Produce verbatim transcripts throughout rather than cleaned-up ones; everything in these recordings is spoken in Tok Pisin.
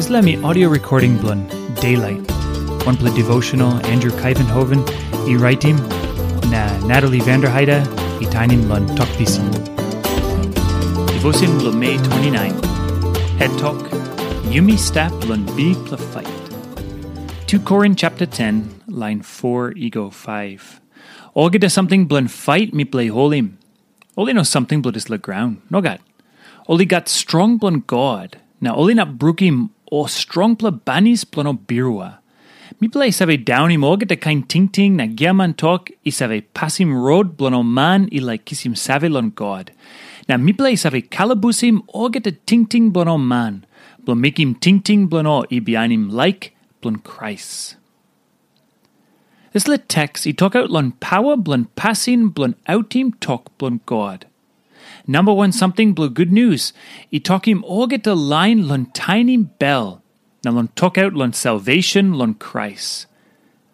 Dispela mi audio recording bilong Daylight, wanpela devotional Andrew Kaivenhoven i raitim, na Natalie Vanderheide i tainim long Tok Pisin. Devotion bilong Mei twenty-nine. Het tok, Yumi stap long bikpela fight. two Korin chapter ten, line four i go five. Olgeta samting bilong fight mipela i holim, ol i no samting bilong dispela graun. Nogat. Ol i gat strong bilong God, na ol inap brukim ol strongpela banis bilong ol birua. Mipela i save daunim olgeta kain tingting na giaman tok i save pasim rot bilong ol man i laik kisim save long God. Na mipela i save kalabusim olgeta tingting bilong ol man, bilong mekim tingting bilong ol i bihainim laik bilong Krais. Dispela teks i tokaut long pawa bilong pasin bilong autim tok bilong God. Namba wan samting bilong gutnius i tokim olgeta lain long tainim bel, na long tokaut long salvation long Krais.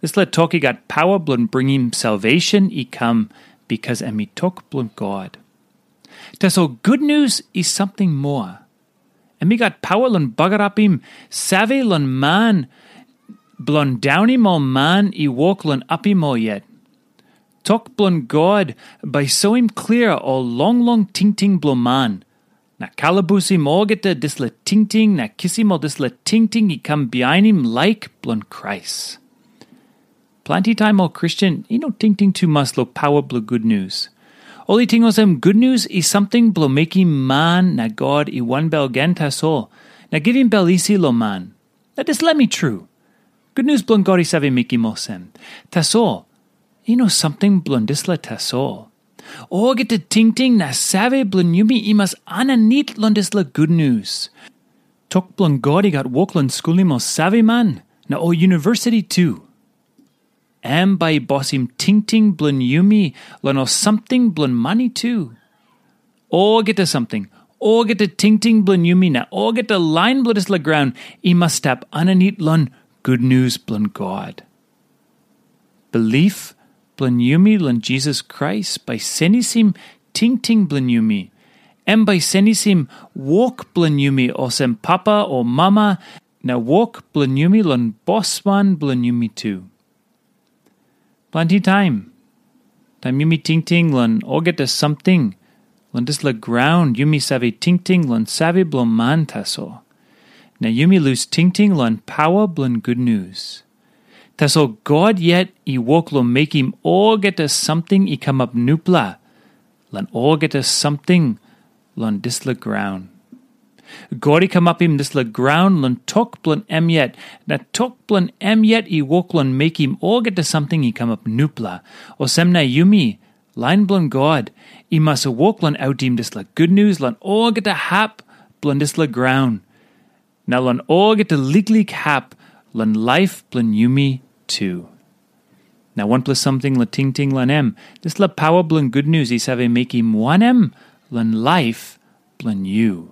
Dispela tok i gat pawa bilong bringim salvation i kam, bikas em i tok bilong God. Tasol gutnius i samting moa. Em i gat pawa long bagarapim save long man, bilong daunim ol man i wok long apim ol yet. Tok bilong God bai soim klia ol longlong tingting bilong man, na kalabusim olgeta dispela tingting na kisim ol dispela tingting i kam bihainim laik bilong Krais. Planti taim ol Kristen i no tingting tumas long pawa bilong gutnius. Ol i ting olsem gutnius i samting bilong mekim man na God i wanbel gen tasol, na givim bel isi long man. Na dispela mi tru. Gutnius bilong God i save mekim olsem. Tasol, i no samting bilong dispela tasol. Olgeta tingting na save bilong yumi i mas aninit long dispela gutnius. Tok bilong God i gat wok long skulim ol saveman na ol universiti tu. Em bai i bosim tingting bilong yumi long ol samting bilong mani tu. Olgeta samting, olgeta tingting bilong yumi na olgeta lain bilong dispela graun i mas stap aninit long gutnius bilong God. Bilip bilong yumi long Jisas Krais bai senisim tingting bilong yumi. Em bai senisim wok bilong yumi olsem papa o mama, na wok bilong yumi long bosman bilong yumi tu. Planti taim, taim yumi tingting long olgeta samting long dispela graun, yumi save tingting long save bilong man tasol. Na yumi lus tingting long pawa bilong gutnius. Tasol God yet i wok long mekim olgeta samting i kamap nupela long olgeta samting long dispela graun. God i kamapim dispela graun long tok bilong em yet, na tok bilong em yet i wok long mekim olgeta samting i kamap nupela. Olsem na yumi, lain bilong God, i mas wok long autim dispela gutnius long olgeta hap bilong dispela graun, na long olgeta liklik hap long laip bilong yumi tu. Na wanpela samting long tingting long em, dispela pawa bilong gutnius i save mekim wanem long laip bilong yu?